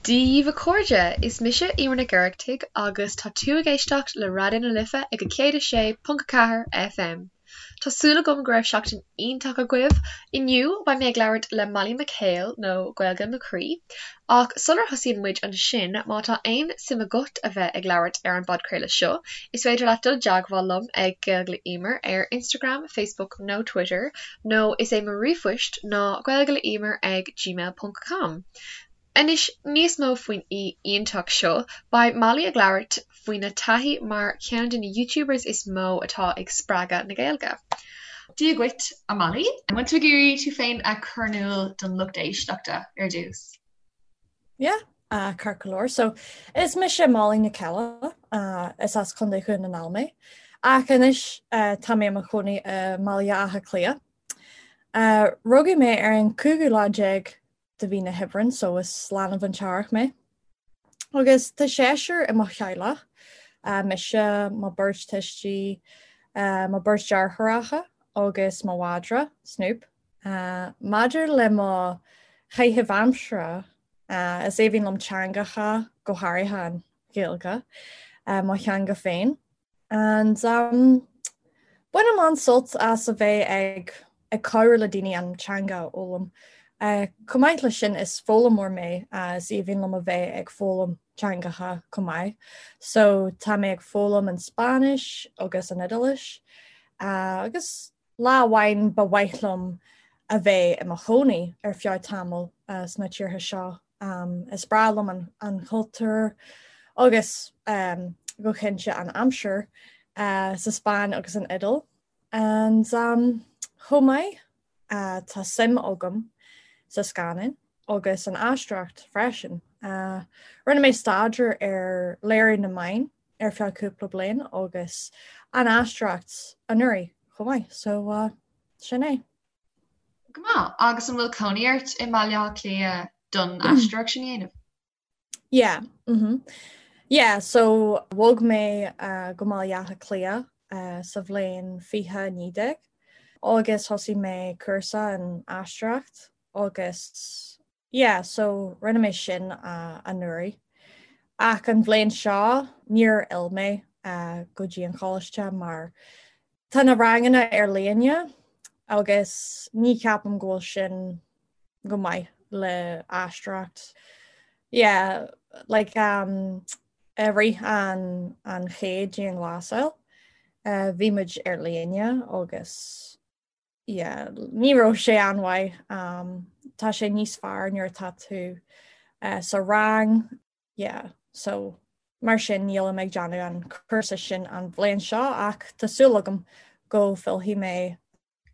Dia dhaoibh a chairde, is mise Emer Nic Oireachtaigh agus tá tú ag éisteacht le Raidió na Life ag 106.4 FM. Tá súil agam go raibh seachtain iontach agaibh. Inniu beidh mé ag labhairt le Molly McHale nó Gaeilge mo Chroí. Ach sular thosaíonn muid ansin, má tá aon suim agat a bheith ag labhairt ar an bpodchraoladh seo, is féidir leat dul i dteagmháil liom ag Gaeilge le Emer ar Instagram, Facebook nó Twitter, nó is é mo ríomhphoist ná gaeilgeleemer ag gmail ponc com. Anois, níos mó faoin aoi iontach seo, beidh Molly ag labhairt faoina taithí mar cheann de na YouTubers is mó atá ag spreagadh na Gaeilge. Dia dhuit, a Molly. An bhfuil tú ag iarraidh tú féin a chur in iúl don lucht éisteachta ar dtús? Yeah, ceart go leor. So, is mise Molly Nic Ceile, is as Contae Dhún na nGall mé. Ach anois tá mé i mo chónaí i mBaile Átha Cliath. Rugadh mé ar an cúigiú lá déag de mhí na hAibreán so is leanbh an t-earrach mé. Agus tá seisear i mo theaghlach, mise, mo beirt tuistí, mo beirt deartháireacha agus mo mhadra, Snoop. Maidir le mo chaitheamh aimsire, is aoibhinn liom teangacha, go háirithe an Ghaeilge, mo theanga féin. And um, bainim an-sult as a bheith ag ag cabhrú le daoine an teanga a fhoghlaim. Uh, chomh maith leis sin is foghlaimeoir mé uh, is aoibhinn liom a bheith ag foghlaim teangacha chomh maith. So tá mé ag foghlaim an Spáinnis agus an Iodáilis uh, agus lá amháin ba mhaith liom a bheith i mo chónaí ar feadh tamall uh, sna tíortha seo. Um, is breá liom an, an cultúr agus um, go cinnte an aimsir uh, sa Spáinn agus an Iodáil. And um, chomh maith uh, tá suim agam sa scannán agus an aisteoireacht freisin. Uh, rinne mé staidéar ar léiriú na meán ar feadh cúpla bliain agus an aisteoireacht anuraidh chomh maith, so uh, sin é. Go maith. Agus an bhfuil cónaí ort i mBaile Átha Cliath don aisteoireacht sin a dhéanamh? Yeah. Mm -hmm. Yeah, so bhog mé uh, go Baile Átha Cliath uh, sa bhliain 2019 agus thosaigh mé cúrsa in aisteoireacht agus Yeah, so rinne mé sin uh, anuraidh. Ach an bhliain seo níor fhill mé uh, go dtí an choláiste mar tá na ranganna ar líne agus ní cheapaim go bhfuil sin go maith le aisteoireacht. Yeah, like um, i rith an, an chéad dianghlasáil, uh, bhí muid ar líne agus yeah, ní raibh sé an-mhaith. Um, tá sé níos fearr nuair atá tú uh, sa rang. Yeah, so mar sin nílim ag déanamh an cúrsa sin an bhliain seo ach tá súil agam go bhfillfidh mé.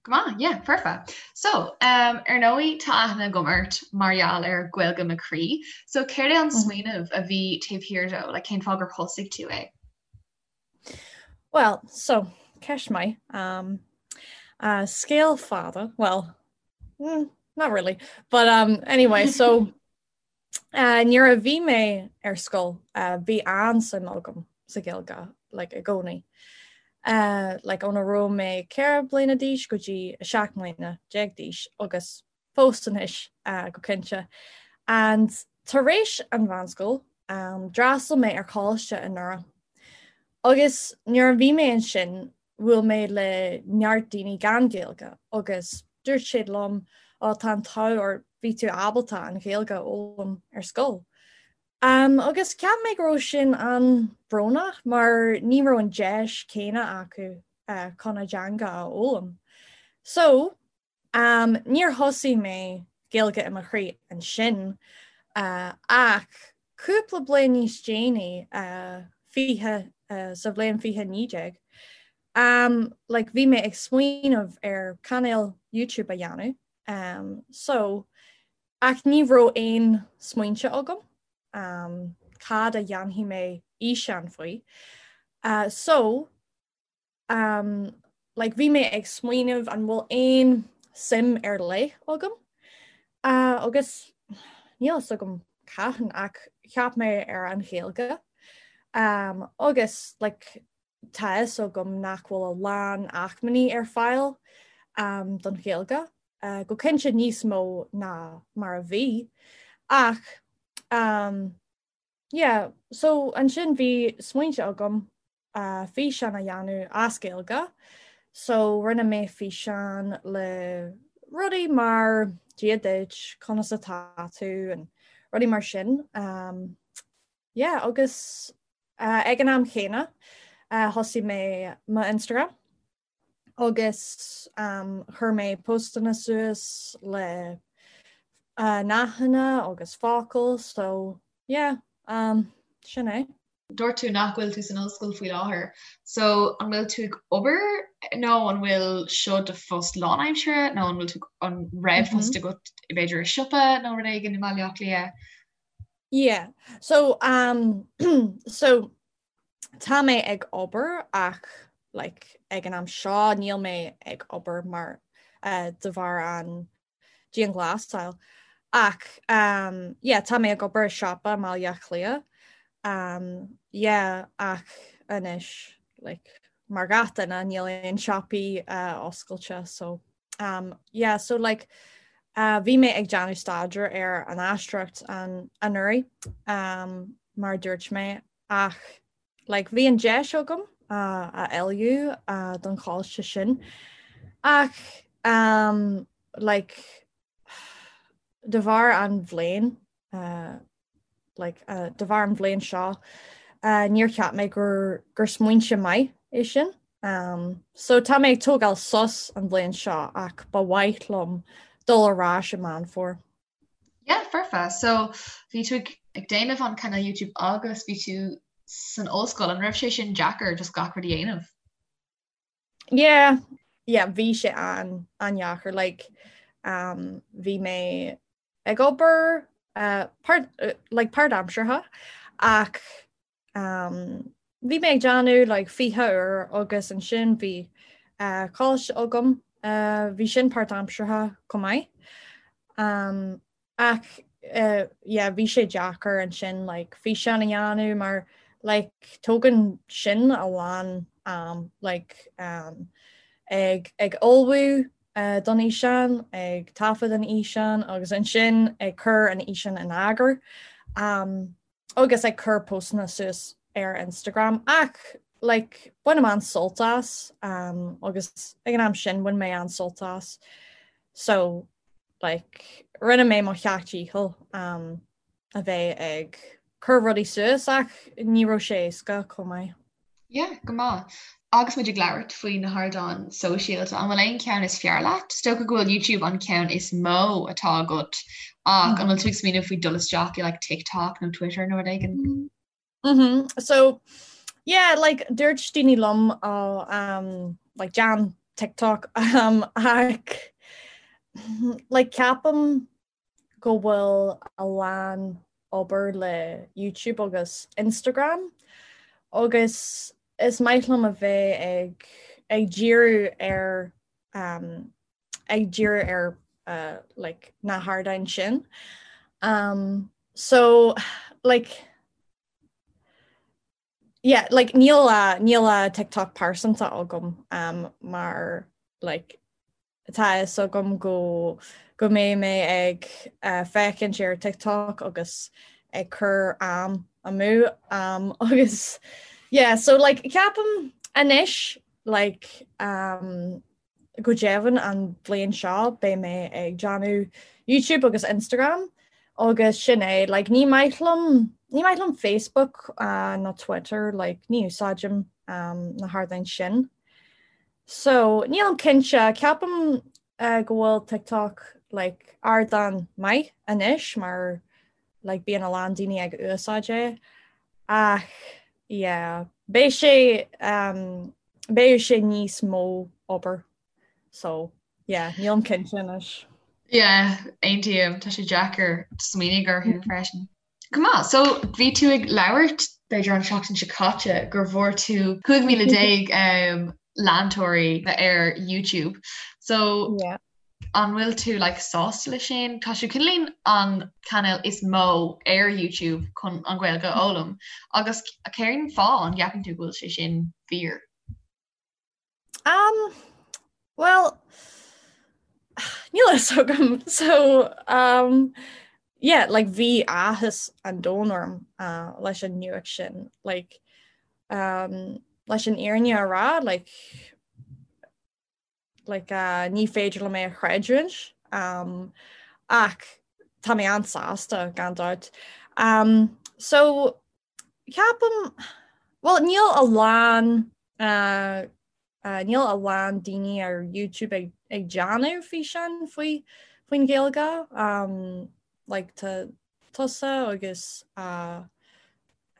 Go maith, yeah, perfect. So, um, ar ndóigh tá aithne agam ort mar gheall ar Gaeilge mo Chroí. So céard é an mm. smaoineamh a bhí taobh thiar dó, like, cén fáth gur thosaigh tú é? Well, so, ceist maith. Um, uh, scéal fada, well, mm, not really. But um, anyway, so uh, nuair a bhí mé ar scoil, uh, bhí an-suim agam sa Ghaeilge, like, i gcónaí. Uh, like, óna raibh mé 4 bliana d'aois go dtí 17 mbliana d'aois agus fós anois go cinnte. And tar éis an mheánscoil, um, d'fhreastail mé ar choláiste i nDoire. Agus nuair a bhí mé ansin, bhuail mé le neart daoine gan Gaeilge agus dúirt siad liom, ó tá an t-ádh ort bhí tú ábalta an Ghaeilge a fhoghlaim ar scoil. Um, agus cheap mé go raibh sin an-bhrónach mar ní raibh an deis céanna acu uh, chun a dteanga a fhoghlaim. So, Um, níor thosaigh mé Gaeilge i mo chroí ansin, uh, ach cúpla bliain níos déanaí, uh, 20, uh, sa bhliain 2019, um, like, bhí mé ag smaoineamh ar cainéal YouTube a dhéanamh, um, so, ach ní raibh aon smaointe agam, um, cad a dhéanfaidh mé físeán faoi. Uh, so, Um, like, bhí mé ag smaoineamh an bhfuil aon suim ar leith agam. Uh, agus níl fhios agam cathain ach cheap mé ar an Ghaeilge. Um, agus like, tá fhios agam nach bhfuil a lán acmhainní ar fáil um, don Ghaeilge. Uh, go cinnte níos mó ná mar a bhí. Ach um, yeah, so ansin bhí smaointe agam uh, físeán a dhéanamh as Gaeilge, so rinne mé físeán le rudaí mar Dia duit, conas atá tú and rudaí mar sin. Um, yeah, agus uh, ag an am chéanna uh, thosaigh mé mo Instagram agus um, chuir mé postanna suas le uh, nathanna agus focail, so yeah, um, sin é. Dúirt tú nach bhfuil tú san ollscoil faoi láthair, so an bhfuil tú ag obair nó an bhfuil seo do phost lánaimseartha nó an bhfuil tú an raibh post agat b'fhéidir i siopa nó rud éigin i mBaile Átha Cliath? Yeah, so um, so tá mé ag obair ach like, ag an am seo níl mé ag obair mar uh, de bharr an dianghlasáil. Ach um, yeah, tá mé ag obair i siopa i mBaile Átha Cliath. Um, yeah, ach anois like, mar gach duine níl aon siopaí uh, oscailte so um, yeah, so like, uh, bhí mé ag déanamh staidéar ar an aisteoireacht an anuraidh um, mar dúirt mé ach Like, bhí an deis agam uh, a ullmhú uh, don choláiste sin ach um, like, de bharr an bhliain uh, like, uh, de bharr an bhliain seo uh, níor cheap mé gur, gur smaointe maith é sin. Um, so tá mé ag tógáil sos an bhliain seo ach ba mhaith liom dul ar ais i Meán Fómhair. Yeah, foirfe. So bhí tú ag déanamh an cainéal YouTube agus bhí tú san ollscoil, an raibh sé sin deacair just gach rud a dhéanamh? Yeah, yeah, bhí sé an an-deacair like um, bhí mé ag obair uh, part, uh, like páirtaimseartha ach Um, bhí mé ag déanamh like 20 uair agus ansin bhí uh, coláiste agam, uh, bhí sin páirtaimseartha chomh maith. Um, ach uh, yeah, bhí sé deacair ansin like, físeán a dhéanamh mar like, tógann sin a lán um, like, um, ag, ag ullmhú uh, don fhíseán, ag taifead an fhíseán agus ansin ag cur an fhíseán in eagar. Um, agus ag cur postanna suas ar Instagram ach like bainim an-sult as um, agus ag an am sin bhain mé an-sult as so like rinne mé mo sheacht dícheall um, a bheith ag cur rudaí suas ach ní raibh sé éasca chomh maith. Yeah, go maith. Agus muid ag labhairt faoi na hardáin sóisialta, an bhfuil aon cheann is fearr leat? Is dócha go bhfuil YouTube an ceann is mó atá agat ach an bhfuil tú ag smaoineamh faoi dul isteach i like TikTok nó Twitter nó rud éigin? Mm -hmm. So yeah, like dúirt daoine liom oh, um, like déan TikTok um, ach like ceapaim go bhfuil a lán obair le YouTube agus Instagram agus is maith liom a bheith ag ag díriú ar um, ag díriú ar uh, like, na hardáin sin. Um, so like, yeah, like, níl uh, níl uh, TikTok pearsanta agam um, mar like, Tá a fhios agam go go mbeidh mé ag féachaint ar TikTok agus ag cur am amú um, agus yeah, so like ceapaim anois like um, go deimhin an bhliain seo beidh mé ag déanamh YouTube agus Instagram agus sin é like ní maith liom ní maith liom Facebook uh, ná Twitter like ní úsáidim um, na hardáin sin. So, nílim cinnte, ceapaim go bhfuil TikTok like ardán maith anois mar like bíonn a lán daoine ag úsáid é ach yeah beidh sé um, beidh sé níos mó obair so yeah nílim cinnte anois. Yeah, aontaím, tá sé deacair smaoineamh orthu freisin. Go maith, so bhí tú ag labhairt b'fhéidir an tseachtain seo caite gur bhfuair tú 15,000 um, leantóirí ar YouTube. So yeah. an bhfuil tú like, sásta le sin? Tá sé cineáilín an cainéal is mó ar YouTube chun an Ghaeilge a fhoghlaim agus cén fáth an gceapann tú go bhfuil sé sin fíor? Um, well, níl a fhios agam. So, um, yeah like bhí áthas an domhain orm uh, leis an nuacht sin like um, leis an fhírinne a rá like like uh, ní féidir liom é a chreidiúint um, ach tá mé an-sásta gan dabht. Um, so ceapaim well níl a lán uh, uh, níl a lán daoine ar YouTube ag, ag déanamh físeán faoi faoin Ghaeilge um, like tá tusa agus uh,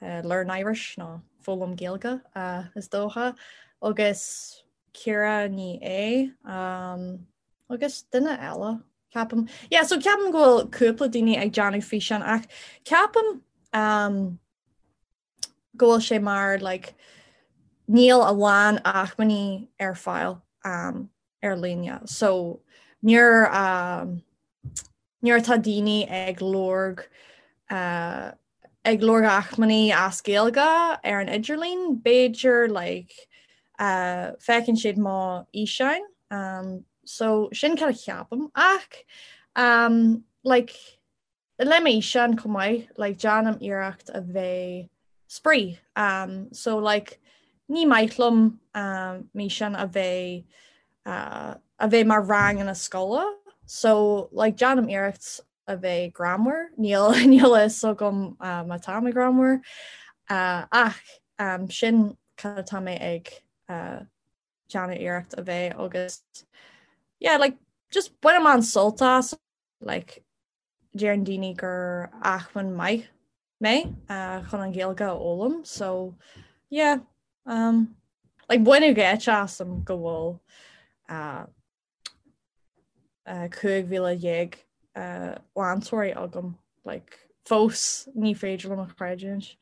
uh, Learn Irish nó Foghlaim Gaeilge uh, is dócha agus Ciara Ní É um, agus duine eile ceapaim. Yeah, so ceapaim go bhfuil cúpla daoine ag déanamh físeán ach ceapaim um, go bhfuil sé mar like, níl a lán acmhainní ar fáil um, ar líne. So nuair um, nuair atá daoine ag lorg uh, ag lorg acmhainní as Gaeilge ar an idirlíon, b'fhéidir like, uh, feiceann siad mo fhíseáin. Um, so sin cad a cheapaim ach um, like, le m'fhíseáin chomh maith, like, déanaim iarracht a bheith spraoi. Um, so like, ní maith liom um, m'fhíseáin a bheith uh, a bheith mar ranganna scoile, so like, déanaim iarracht a bheith greannmhar, níl níl a fhios agam uh, má tá mé greannmhar uh, ach um, sin cad atá mé ag uh, déanamh iarracht a bheith agus yeah, like, just bainim an-sult as like, deireann daoine gur acmhainn maith mé uh, chun an Ghaeilge a fhoghlaim so yeah um, like baineadh geit asam go bhfuil uh, 15,000 leantóirí agam like fós ní féidir liom a chreidiúint.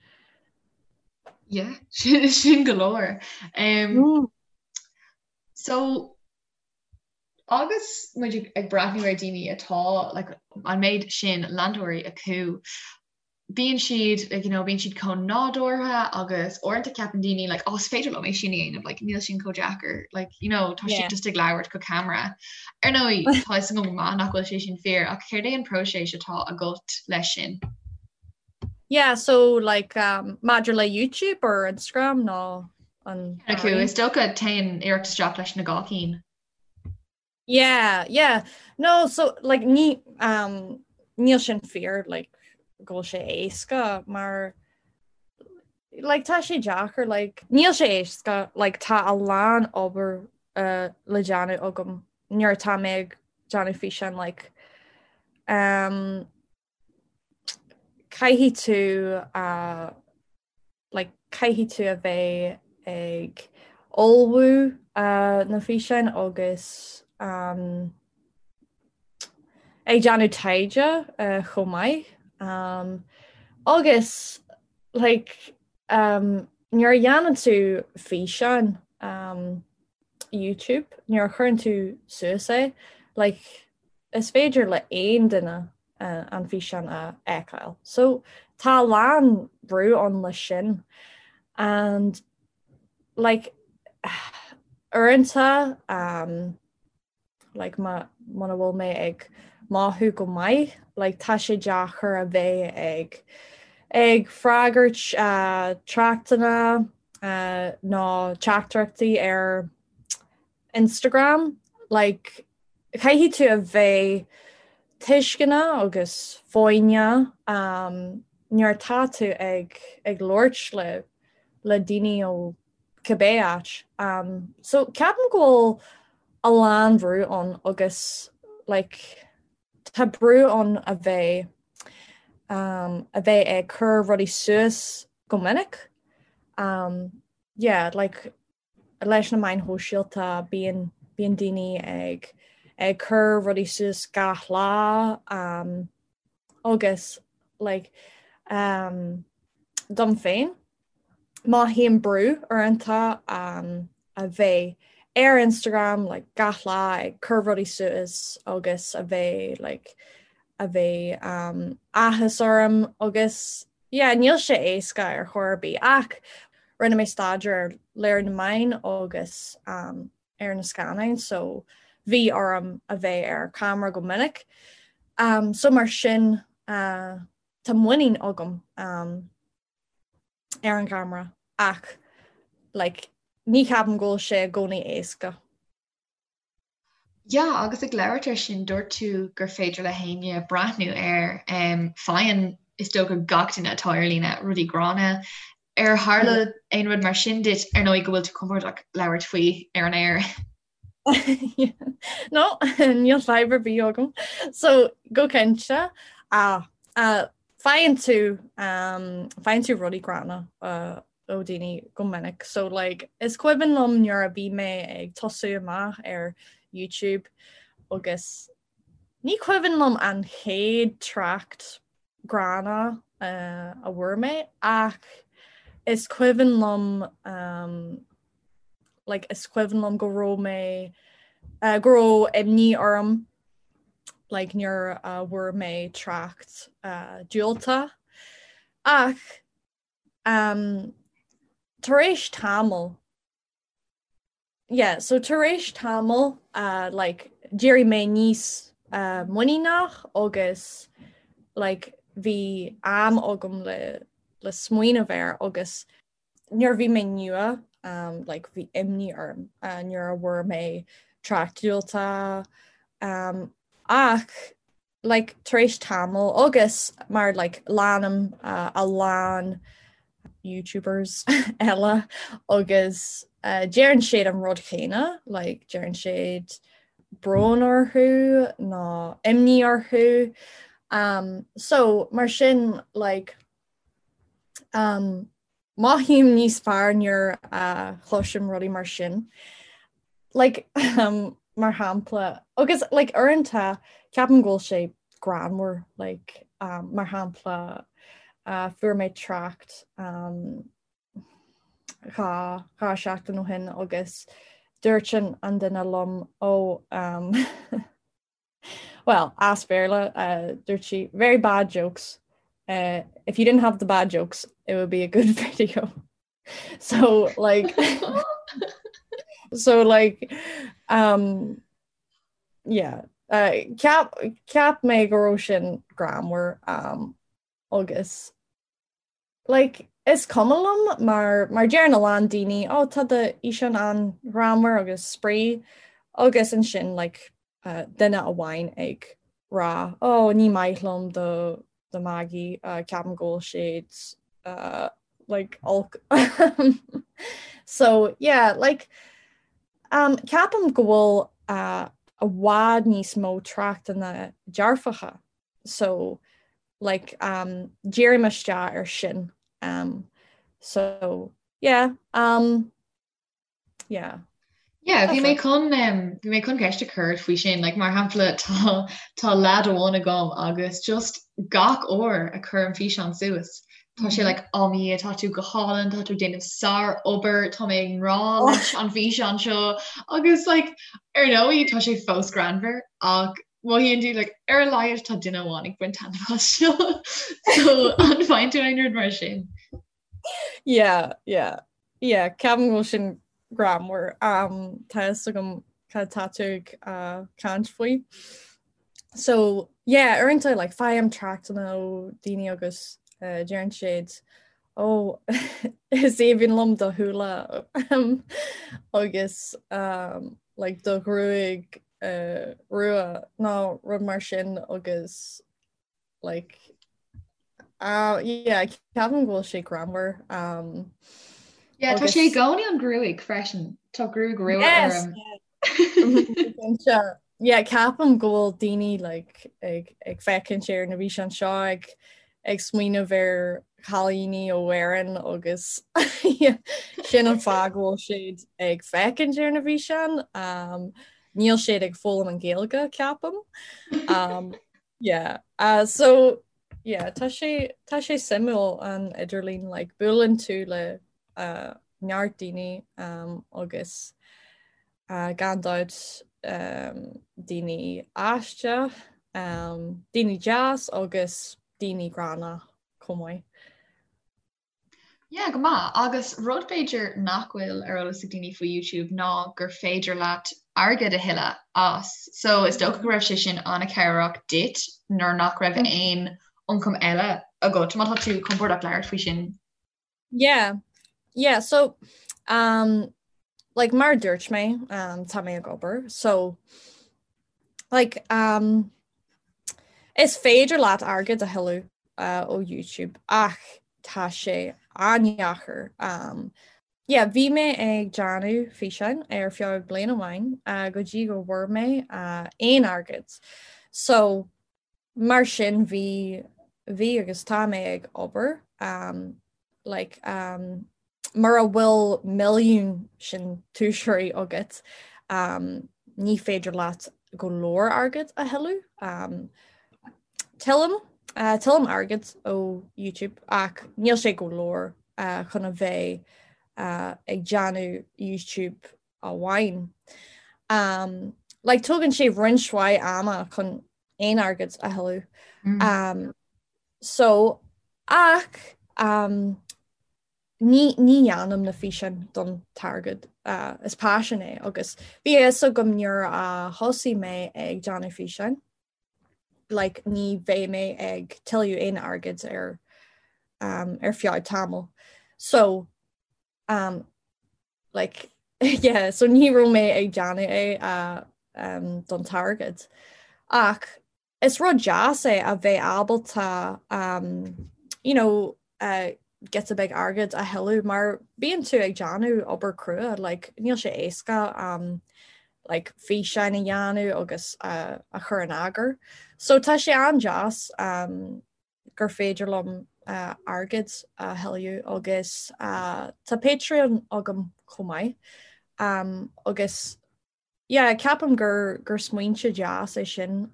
Yeah, sin go leor. Um, mm. So agus muid ag breathnú ar daoine atá like, an méid sin leantóirí acu, bíonn siad like, you know, bíonn siad chomh nádúrtha agus uaireanta ceapann daoine like, oh, is féidir liom é sin a dhéanamh like, níl sin chomh deacair like, you know, tá yeah. siad just ag labhairt go camera. Ar ndóigh tá a fhios agam go maith nach bhfuil sé sin fíor ach céard é an próiseas atá agat leis sin? Yeah, so like um, maidir le YouTube or Instagram nó an acu is dócha téann iarracht isteach leis na dhá cinn. Yeah, yeah. No, so like ní um níl sin fíor like go bhfuil sé éasca mar like tá sé deacair like níl sé éasca like tá a lán obair uh, le déanamh agam nuair atá mé ag déanamh físeán like um caithfidh tú uh, like caithfidh tú a bheith ag ullmhú uh, na físeáin agus um, ag déanamh taighde uh, chomh maith. Um, agus like, um, nuair a dhéanann tú físeán um, YouTube, nuair a chuireann tú suas é, like, is féidir le aon duine an físeán a fheiceáil. So tá a lán brú ann leis sin and like uaireanta um, like má muna bhfuil mé ag mothú go maith, like tá sé deacair a bheith ag ag freagairt uh, tráchtanna uh, nó teachtaireachtaí ar Instagram, like caithfidh tú a bheith tuisceanach agus foighneach um, nuair atá tú ag ag labhairt le le daoine ó cibé áit. Um, so ceapaim go bhfuil a lán brú ann agus like, tá brú ann a bheith um, a bheith ag cur rudaí suas go minic. Um, yeah, like leis na meáin shóisialta bíonn bíonn daoine ag ag cur rudaí suas gach lá um, agus like, um, dom féin mothaím brú uaireanta um, a bheith ar Instagram like, gach lá ag cur rudaí suas agus a bheith like, a bheith um, áthas orm agus Yeah, níl sé éasca ar chor ar bith ach rinne mé staidéar ar léiriú na meán agus um, ar na scannáin so bhí orm a bheith ar camera go minic. Um, so mar sin uh, tá muinín agam um, ar an gceamara ach like, ní cheapaim go bhfuil sé i gcónaí éasca. Yeah, agus ag labhairt ar sin, dúirt tú gur féidir le héinne breathnú air. Um, faigheann is dócha gach duine atá ar líne rudaí gránna. Ar tharla aon rud mar sin duit ar ndóigh go bhfuil tú compordach labhairt faoi ar an aer? No, níl fadhb ar bith agam. So go cinnte ah, uh, faigheann tú um, faigheann tú rudaí gránna uh, ó daoine go minic. So like is cuimhin liom nuair a bhí mé ag tosú amach ar YouTube agus ní cuimhin liom an chéad trácht gránna uh, a bhfuair mé ach is cuimhin liom um, like, is cuimhin liom go raibh mé uh, go raibh imní orm like, nuair a bhfuair mé trácht uh, diúltach ach Um, tar éis tamall yeah, so tar éis tamall uh, like, d'éirigh mé níos uh, muiníneach agus like, bhí am agam le, le smaoineamh air agus nuair bhí mé nua um, like, bhí imní orm uh, nuair a bhfuair mé trácht diúltach um, ach like tar éis tamall agus mar like leanaim uh, a lán YouTubers eile agus uh, deireann siad an rud chéanna like deireann siad brón orthu nó imní orthu um, so mar sin like um, Mothaím níos fearr nuair a chloisim rudaí mar sin. Like, um, mar shampla, agus like, uaireanta ceapaim go bhfuil sé greannmhar, like, um, mar shampla, uh, fuair mé trácht um, dha, dha seachtain ó shin agus dúirt an, an duine liom ó um, Well, as Béarla, uh, dúirt sí, very bad jokes. Uh, if you didn't have the bad jokes, it would be a good video. So like so like um yeah uh, ceap ceap mé go raibh sin greannmhar um agus Like, is cuma liom mar mar deireann a lán daoine oh tá do fhíseán an-ghreannmhar agus spraoi agus ansin like uh, duine amháin ag rá oh ní maith liom do do mhagaidh uh, ceapaim go bhfuil siad uh, like olc. so yeah, like um, ceapaim go bhfuil uh, i bhfad níos mó tráchtanna dearfacha so like um dírím isteach ar sin um so yeah um yeah Yeah, bhí mé chun um, bhí mé chun ceist a chur faoi sin, like, mar shampla tá tá leaid amháin agam agus just gach uair a chuirim físeán suas. Tá sé like oh mo Dhia tá tú go hálainn, tá tú ag déanamh sárobair, tá mé i ngrá leis an bhfíseán seo agus like ar ndóigh tá sé fós greannmhar ach Mothaíonn tú like ar a laghad tá duine amháin ag baint taitneamh as seo. So an bhfaigheann tú aon rud mar sin? Yeah, yeah. Yeah, ceapaim go bhfuil sin greannmhar. Um, tá fhios agam cad tá tú ag uh, caint faoi. So, yeah, uaireanta like, faighim tráchtanna ó daoine agus uh, deireann siad ó is aoibhinn liom do shúile um, agus um, like, do ghruaig uh, rua nó rud mar sin agus like uh, yeah, ceapaim go bhfuil sé greannmhar. Um, yeah, tá sé i gcónaí an gruaig freisin Tá gruaig rua yes, orm. Yeah. yeah, ceapaim go bhfuil daoine like, ag, ag féachaint ar na bhfíseáin seo ag ag smaoineamh ar chailíní ó Éirinn agus sin an fáth go bhfuil siad ag féachaint ar na bhfíseáin. Um, níl siad ag foghlaim an Ghaeilge ceapaim. Um, yeah. Uh, so yeah, tá sé tá sé suimiúil an idirlíon like, buaileann tú le uh, neart daoine um, agus uh, gan dabht um, daoine aisteach, um, daoine deas agus daoine gránna chomh maith. Yeah, go maith. Agus rud b'fhéidir nach bhfuil ar eolas ag daoine faoi YouTube ná gur féidir leat airgead a thuilleamh as. So is dócha go raibh sé sin an-chabhrach duit nuair nach raibh mm. aon ioncam eile agat, má tá tú compordach labhairt faoi sin. Yeah, yeah, so um, like mar dúirt mé um, tá mé ag obair, so like um, is féidir leat airgead a thuilleamh uh, ó YouTube ach tá sé an-deacair. Um, yeah, bhí mé ag déanamh físeáin ar feadh bliain amháin uh, go dtí go bhfuair mé uh, aon airgead. So Mar sin bhí, bhí agus tá mé ag obair um, like, um, mura bhfuil milliún síntiúsóirí agat um, ní féidir leat go leor airgead a thuilleamh. Um, tuillim, uh, tuillim airgead ó YouTube ach níl sé go leor uh, chun a bheith uh, ag déanamh YouTube amháin. Um, like, tógann sé roinnt mhaith ama chun aon airgead a thuilleamh. Mm. Um, so ach um, ní, ní dhéanaim na físeáin don t-airgead uh, is paisean é agus bhí a fhios agam nuair a thosaigh mé ag déanamh físeáin like, ní bheidh mé ag tuilleamh aon airgead ar um, ar feadh tamall. So um, like yeah so ní raibh mé ag déanamh é uh, um, don t-airgead. Ach is rud deas é a bheith ábalta um, you know, uh, giota beag airgead a thuilleamh mar bíonn tú ag déanamh obair crua like, níl sé éasca um, like, físeáin a dhéanamh agus uh, a chur in eagar. So tá sé an-deas um, gur féidir liom airgead a thuilleamh agus tá Patreon agam chomh maith agus yeah ceapaim gur gur smaointe deas é sin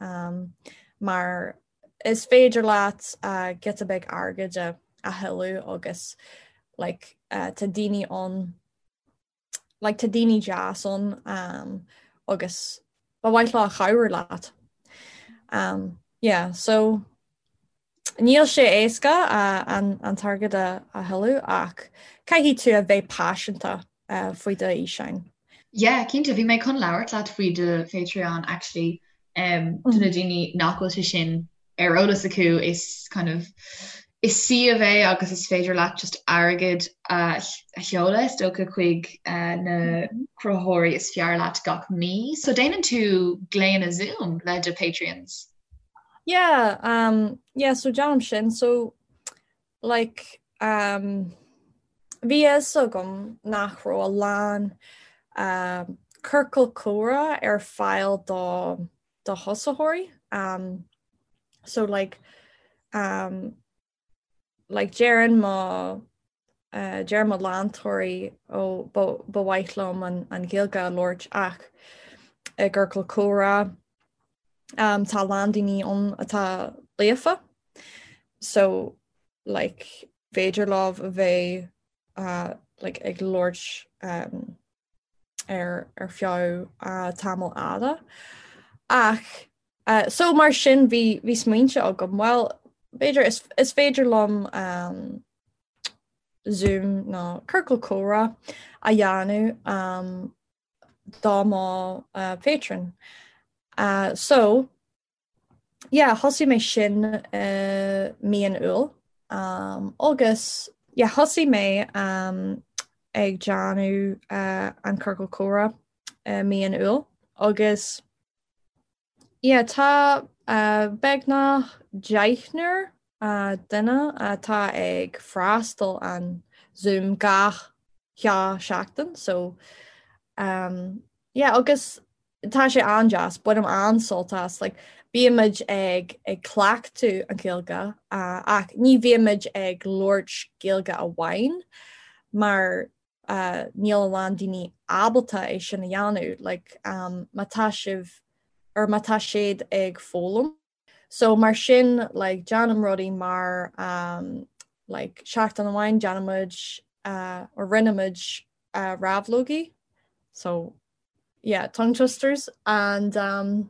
mar is féidir leat giota beag airgid a thuilleamh agus like tá daoine ann like tá daoine deas ann um, agus ba mhaith leo cabhrú leat. Um, yeah, so níl sé éasca uh, an, an t-airgead a, a thuilleamh ach caithfidh tú a bheith paiseanta uh, faoi do fhíseáin. Yeah, cinnte, bhí mé chun labhairt leat faoi do Patreon actually um, do na daoine nach bhfuil sé sin ar eolas acu is kind of is suíomh é agus is féidir leat just airgead a sheoladh is dócha chuig na cruthaitheoirí is fearr leat gach mí. So déanann tú glaonna Zoom le do Patreons? Yeah, um, yeah, so déanaim sin. So like um, bhí a fhios agam nach raibh a lán um, ciorcal comhrá ar fáil do do thosaitheoirí um, so like um, like deireann mo uh, deir mo leantóirí ó ba, ba mhaith liom an, an Ghaeilge a labhairt ach i gciorcal comhrá um, tá a lán daoine ann atá líofa so like féidir leo a bheith uh, like ag labhairt um, ar ar feadh tamall fhada. Ach so mar sin bhí bhí smaointe agam, bhuel b'fhéidir is is féidir liom um, Zoom nó ciorcal comhrá a dhéanamh um, do mo uh, patron. Uh, so yeah, thosaigh mé sin i mí an Iúil um, agus yeah, thosaigh mé um, ag déanamh uh, an ciorcal comhrá i mí an Iúil agus yeah, tá uh, beagnach deichniúr uh, duine atá ag freastal an Zoom gach dhá seachtain so um, yeah, agus Tá sé an-deas, bainim an-sult as, like, bímid ag ag cleachtadh an Ghaeilge ach ní bhímid ag labhairt Gaeilge amháin mar níl a lán daoine ábalta é sin a dhéanamh, like, má tá sibh or má tá siad ag foghlaim. So mar sin like déanaim rudaí mar um, like seachtain amháin déanaimid uh, or rinne muid uh, rabhlógaí so yeah tongue twisters and um,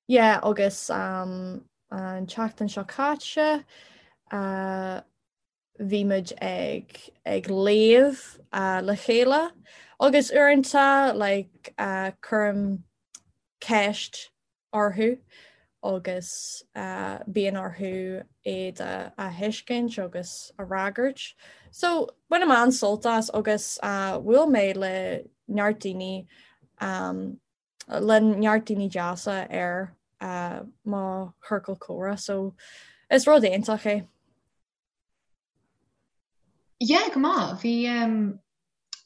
yeah agus um, an tseachtain seo caite uh, bhí muid ag ag léamh uh, le chéile agus uaireanta like uh, cuirim ceist orthu. agus bíonn orthu iad a thuiscint agus a fhreagairt. So bainim an-sult as agus bhuail mé le neart daoine le neart daoine deasa ar mo chiorcal comhrá so is rud iontach é. Yeah, go maith. Bhí um,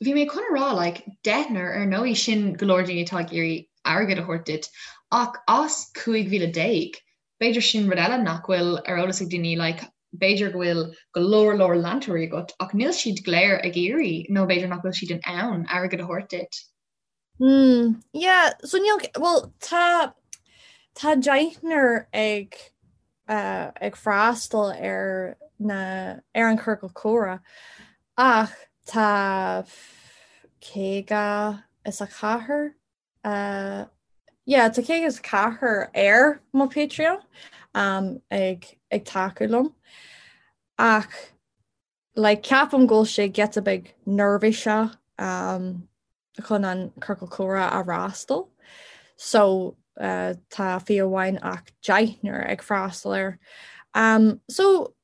bhí mé chun a rá like, deichniúr ar ndóigh sin go leor daoine atá ag iarraidh airgead a thabhairt duit ach as 15,000 b'fhéidir sin rud eile nach bhfuil ar eolas ag daoine like, b'fhéidir go bhfuil go leor leor leantóirí agat ach níl siad go léir ag iarraidh nó b'fhéidir nach bhfuil siad in ann airgead a thabhairt duit. Mm, yeah, so níl, well, tá, tá deichniúr ag, uh, ag freastal ar na, ar an ciorcal comhrá ach tá 54, uh, yeah, tá 54 ar mo Patreon um, ag, ag tacú liom ach like ceapaim go bhfuil sé giota beag neirbhíseach um, chun an ciorcal comhrá a fhreastal. So uh, tá fiú amháin ach deichniúr ag freastal air. Um, so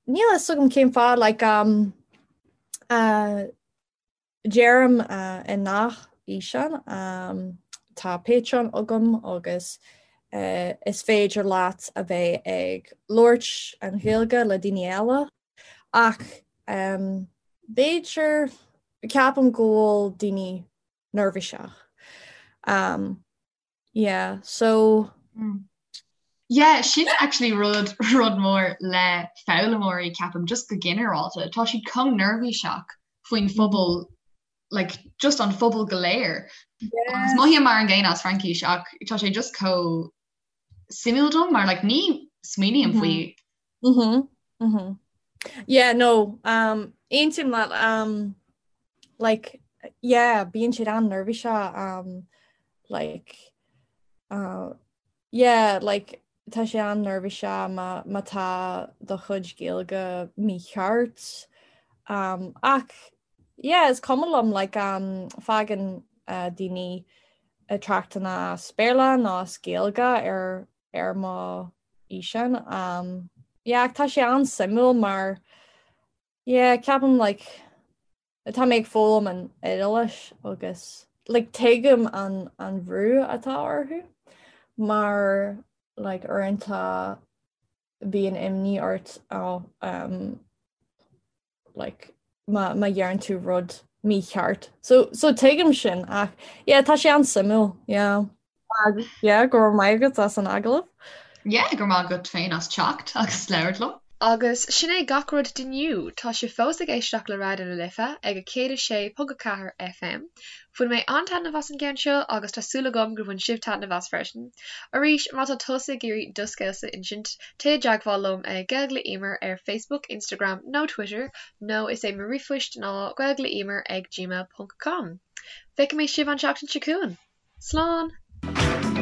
níl a fhios agam cén fáth like, um, uh, Deirim i ngach fhíseán, tá Patreon agam agus is féidir leat a bheith ag labhairt an Ghaeilge le daoine eile ach b'fhéidir, ceapaim go bhfuil daoine neirbhíseach. Yeah, so. Yeah, sin actually rud rud mór le foghlaimeoirí ceapaim just go ginearálta. Tá siad chomh neirbhíseach faoin phobal like just an phobal go léir. Yeah. Agus mothaím mar an gcéanna as Fraincis ach tá sé just chomh suimiúil dom mar like ní smaoiním mm-hmm. faoi. Mhm. Mhm. Yeah, no, um, aontaím leat um, like yeah, bíonn siad an-neirbhíseach um, like uh, yeah, like tá sé an-neirbhíseach má má tá do chuid Gaeilge mícheart um, ach yeah, is cuma liom like um, fágann uh, daoine tráchtanna as Béarla nó as Gaeilge ar ar mo fhíseán um, yeah, ach tá sé an-suimiúil mar yeah, ceapaim like Tá mé ag foghlaim an Iodáilis agus like tuigim an an bhrú atá orthu mar like uaireanta bíonn imní ort oh, um, like má má dheireann tú rud mícheart. So so tuigim sin ach yeah, tá sé an-suimiúil yeah. Yeah, go raibh maith agat as an agallamh. Yeah, go raibh maith agat féin as teacht agus labhairt liom. Agus sin é gach rud d'inniu! Tá sibh fós ag éisteacht le Raidió na Life ag 106.4 FM. Bhain mé an-taitneamh as an gceann seo agus tá súil agam gur bhain sibh taitneamh as freisin. Arís, má tá tusa ag iarraidh do scéalsa a insint, téigh i dteagmháil liom ag Gaeilge le Emer ar Facebook, Instagram nó Twitter nó is é mo ríomhphoist ná gaeilgeleemer ag gmail ponc com. Feicfidh mé sibh an tseachtain seo chugainn! Slán!